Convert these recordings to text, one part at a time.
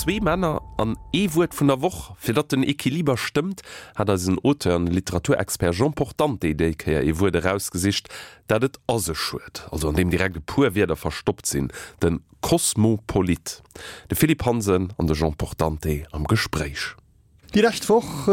Zwee Männer an ee Wuert vun der Woch. Fir datt den Equiliber stëmmt, hat eisen Auteur an Literaturexpert Jean Portante déi Kéier ee Wuert erausgesicht, dat et a sech huet, also an deem direkt e puer Wierder verstoppt sinn, de Kosmopolit. De Philippe Hansen an de Jean Portante am Gespréich. Déi lescht Woch,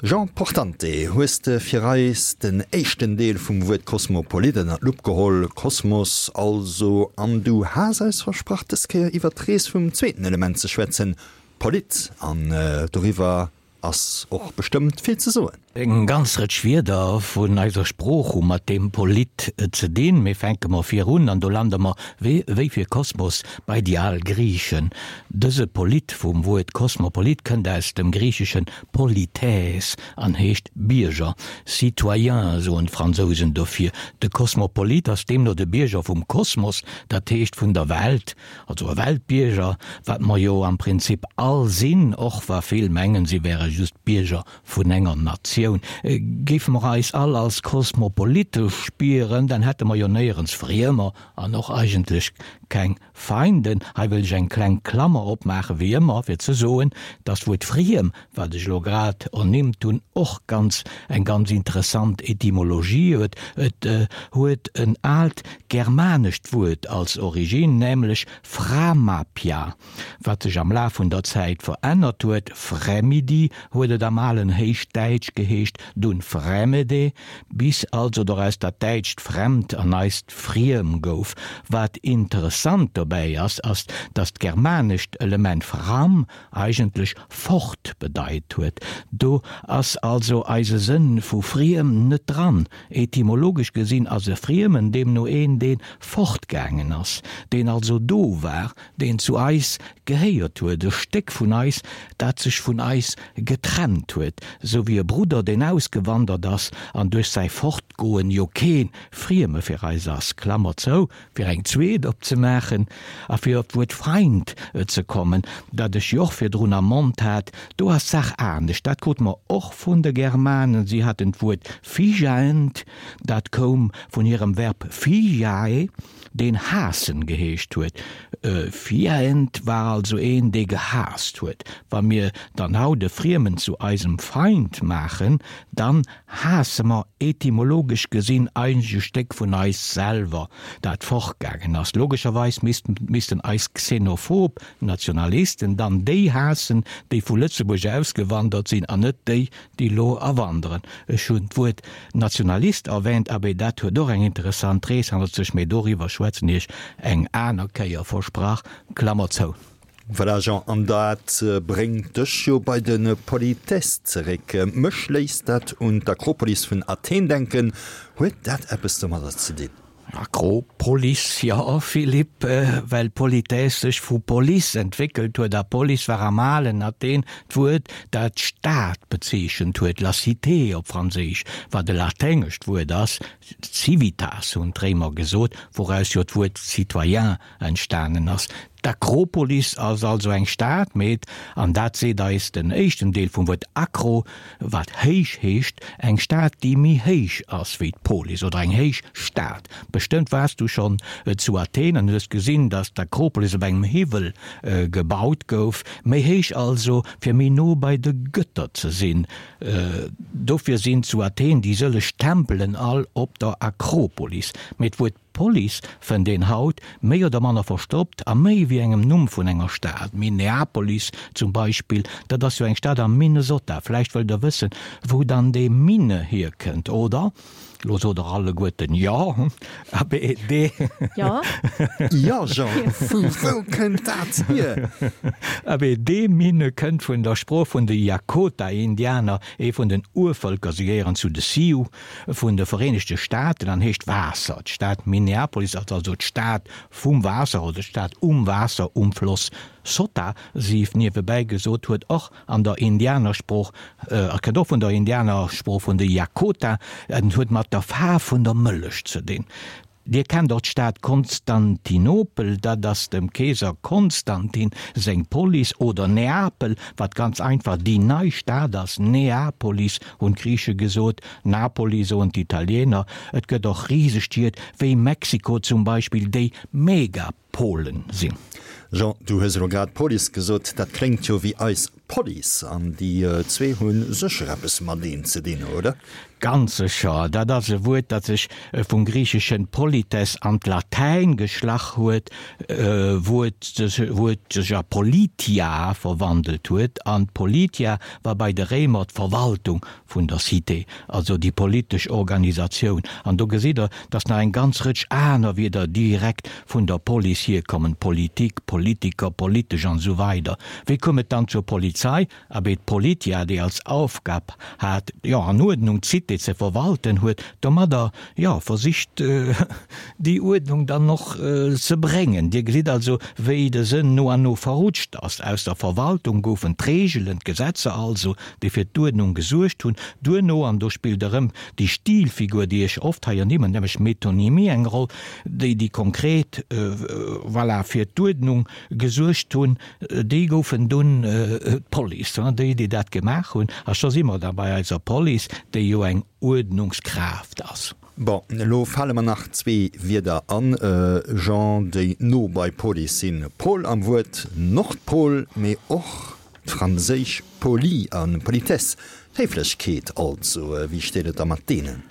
Jean Portante, hues de fir eis den éischten Deel vum Wuert Kosmopolit ënner d'Lupp geholl, Kosmos also, an du has eis versprach, dës Kéier iwwer d'Rees vum zweeten Element ze schwätzen, Polit, an doriwwer ass och bestëmmt vill ze soen. Eng ganz Rëtsch Wierder vun eiser Sprooch hu mat deem Polit ze dinn. Mee fänke mer vir un, an do lande mer, wéi fir Kosmos, bei déi al Griichen. Dëse Polit vum Wuert Kosmopolit kënnt aus dem Griicheschen polites an heescht Bierger, citoyen soen d'Fransousen dofir. De Kosmopolit ass deemno de Bierger vum Kosmos, dat heescht vun der Welt, also e Weltbierger, wat mer jo am Prinzip all sinn, och wa vill mengen, si wäre just Bierger vun enger Natioun. Géife mer eis all als kosmopolitesch spieren, dann hätte mer jo néierens Friemer an och eigentlech keng Feinden. Hei wëll ech eng kleng Klammer opmaachen, wéi ëmmer, fir ze soen, dass d'Wuert friem, wat ech elo grad ernimmt hunn, och ganz eng ganz interessant Etymologie huet. Et huet en aalt germanescht Wuert als Origine, nämlech framapia. Wat sech am Laf vun der Zäit verännert huet, Fremidi huet et am alen Héichdäitsch geheescht, dunn Fremede, bis also doraus dat däitscht fremd an eist friem gouf. Wat interessant dobäi ass, ass, datt d'germanescht Element fram eigentlech fort bedeit huet. Do ass also eise Sënn vu friem net dran. Etymologesch gesinn ass e Friemen deemno een, dee fortgaangen ass, deen also do war, deen zu eis gehéiert huet, e Stéck vun eis, dat sech vun eis getrennt huet, sou wéi e Brudder, deen ausgewandert ass an duerch säi Fortgoen jo kee Frieme fir eis ass, Klammer zou, fir eng zweet opzemaachen a fir op d'Wuert Feind ze kommen, dat ech jo och virdrun am Mond hat, do ass d'Saach anescht, dat krute mer och vun de Germanen, si haten d'Wuert fijaend, dat koum vun hirem Verb fijae, deen haassen geheescht huet. Fiend war also een, dee gehaasst huet. Wa mir dann haut e Friemen zu eisem Feind maachen, dann haasse mer etymologesch gesinn eigentlech e Stéck vun eis selwer, dat fortgaangen ass. Logescherweis missten eis xenophob Nationalisten dann déi haassen, déi vu Lëtzebuerg ausgewandert sinn, an net déi, déi lo awanderen. Ech hunn d'Wuert Nationalist erwähnt, abee dat huet och eng interessant Rees hannert sech, mee doriwwer schwätzen ech eng aner Kéier, versprach, Klammer zou. Voilà Jean, an dat bréngt dech jo bei de Politesse zeréck. Mech léisst dat un d'Akropolis vun Athen denken. Huet dat eppes domadder ze dinn? Akropolis, jo Philippe, well Politesse sech vu Polis entwéckelt huet, a Polis war am alen Athen d'Wuert, dat d'Stad bezeechent huet, la cité op Franséisch, wat e laténgescht Wuert ass, civitas hunn d'Réimer gesot, wouraus jo d'Wuert citoyen entstanen ass. D'Akropolis ass also eng Stad, mee, an dat seet eis den éischten Deel vum Wuert akro, wat héich heescht, eng Stad, déi méi héich ass wéi d'Polis oder eng héich Stad. Bestëmmt waars du schonn zu Athen an hues gesinn, datt d'Akropolis op engem Hiwwel gebaut gouf, méi héich also, fir méi no bei de Gëtter ze sinn. Dofir sinn zu Athen déi sëlleg Tempelen all op der Akropolis. Mee d'Wuert D'Police fënnt een haut, méi oder manner verstoppt, a méi wéi engem Numm vun enger Stad. Minneapolis zum Beispill, dat ass jo eng Stad am Minnesota. Vläicht wëllt der wëssen, wou dann dee Minne hierkënnt, oder? Lo sot der alleguerten jo. Abee, dee. Jo. Jo, Jean, vu wou kënnt dat hier? Abee, dee Minne kënnt vun der Sprooch vun de Jakota-Indianer, ee vun den Urvëlker. Si gehéieren zu de Sioux. vun de Vereenegte Staaten an heescht Waasser. D'Stad Minneapolis ass also d'Stad vum Waasser oder d'Stad um Waasser, um Floss Sota. Sief niewebäi gesot, huet och an der Indianersprooch, a kënnt och vun der Indianersprooch vun de Jakota, en huet mat der Faarf vun der Mëllech ze dinn. Dir kennt och d'Stad Konstantinopel, dat ass dem Keeser Konstantin seng Polis, oder Neapel, wat ganz einfach déi nei Stad ass, Neapolis hunn d'Griiche gesot, Napoli soen d'Italiener. Et gëtt och Risestied, wéi Mexiko zum Beispill, déi Megapolen sinn. Jean, du hues elo grad Police gesot, dat kléngt jo wéi eis Police, an déi zwee hu sécher eppes mateneen ze dinn, oder? Ganz sécher. Dat ass e Wuert, dat sech vum griicheschen polites an d'Latäin geschlach huet, wou et sech a politia verwandelt huet. An d'politia war bei de Réimer d'Verwaltung vun der Cité, also déi politesch Organisatioun. An do gesitt Der, dass nach eng ganz Rëtsch aner Wierder direkt vun der Police hierkommen, Politik, Politiker, politesch an esou weider. Wéi koum et dann zur Polizei? Abee, d'Politia, déi als Aufgab hat, jo, an Uerdnung d'Cité ze verwalten, huet domadder, jo, versicht, déi Uerdnung dann och ze bréngen. Dir gesitt also, wéi de Sënn no an no verrutscht ass. Aus der Verwaltung goufen d'Reegelen, d'Gesetzer also, déi fir d'Uerdnung gesuergt hunn. Duerno, an do spillt erëm déi Stilfigur, déi ech oft hei ernimmen, nämlech d'Metonymie eng Roll, déi, déi konkret, voilà, fir d'Uerdnung gesuergt hunn, déi goufen dunn d'Police, déi, déi dat gemaach hunn. A scho si mer da bei eiser Police, déi jo eng Uerdnungskraaft ass. Bon, elo fale mer nach zwee Wierder an, Jean, déi no bei Police sinn, Pol am Wuert Nordpol, mee och d'franséisch poli a politesse, Héiflechkeet also. Wéi steet et da mat deenen?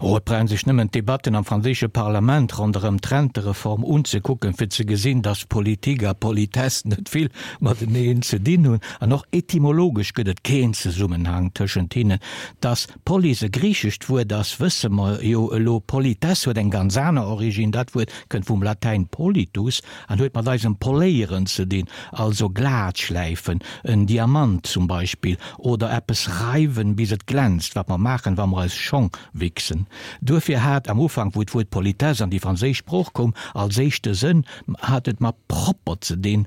Oh, et brauch een sech nëmmen d'Debatten am franséische Parlament ronderëm d'Rentereform unzekucken, fir ze gesinn, dass Politik a Politesse net vill mateneen ze dinn hunn. An och etymologesch gëtt et keen Zesummenhang tëschent hinnen. Dass Polis e griichescht Wuert ass, wësse mer jo elo. Politesse huet eng ganz aner Originn, dat Wuert kënnt vum Latäin politus an huet mat eisem Poléieren ze dinn, also glat schläifen, en Diamant zum Beispill, oder eppes reiwen, bis et glänzt, wat mer maachen, wa mer eis Schong wichsen. Duerfir hat am Ufank, wou d'Wuert Politesse an déi franséisch Sprooch koum, als éischte Sënn hat et mat propper ze dinn,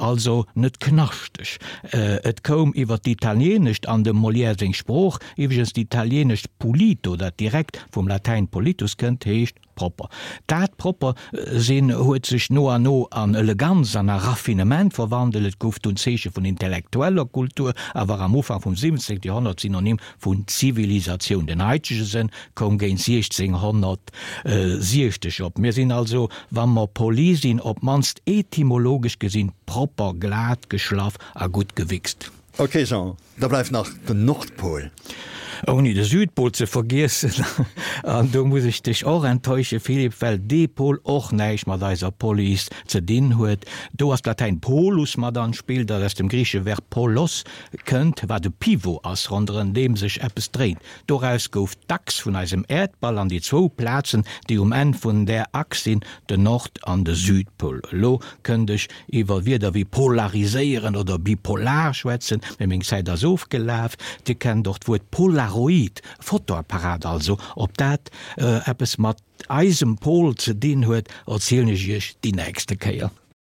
also net knaschteg. Et koum iwwer d'Italienescht an dem Molière seng Sprooch. Iwweregens, d'Italienescht pulito, dat direkt vum Latäin politus kënnt, heescht Propper. Dat propper sinn huet sech no an no an Eleganz an a Raffinement verwandelt. Et gouf dunn d'Zeeche vun intellektueller Kultur a war am Ufank vum 17. Joerhonnert Synonym vun Zivilisatioun. Den haitege Sënn koum géint 1660 op. Mir sinn also, wa mer poli sinn, op d'mannst etymologesch gesinn, propper, glat geschlaff a gutt gewichst. Ok Jean, da bleift nach den Nordpol. Ouni de Südpol ze vergiessen. An do muss ech dech och enttäusche Philippe, well dee Pol och näischt mat eiser Police ze dinn huet. Do ass d'Latäin polus mat an d'Spill, dat aus dem griichesche Verb polos kënnt, wat e Pivot ass, ronderëm deem sech eppes dréint. Doraus gouf d'Achs vun eisem Äerdball an déi zwou Plazen, déi um Enn vun där Achs sinn, den Nord an de Südpol. Elo kënnt ech iwwer Wierder wéi polariséieren oder bipolar schwätzen, mee meng Zäit ass ofgelaf. Dir kennt och d'Wuert Polaroid, Fotoapparat also. Ob dat eppes mat eisem Pol ze dinn huet, erzielen ech iech déi nächste Kéier.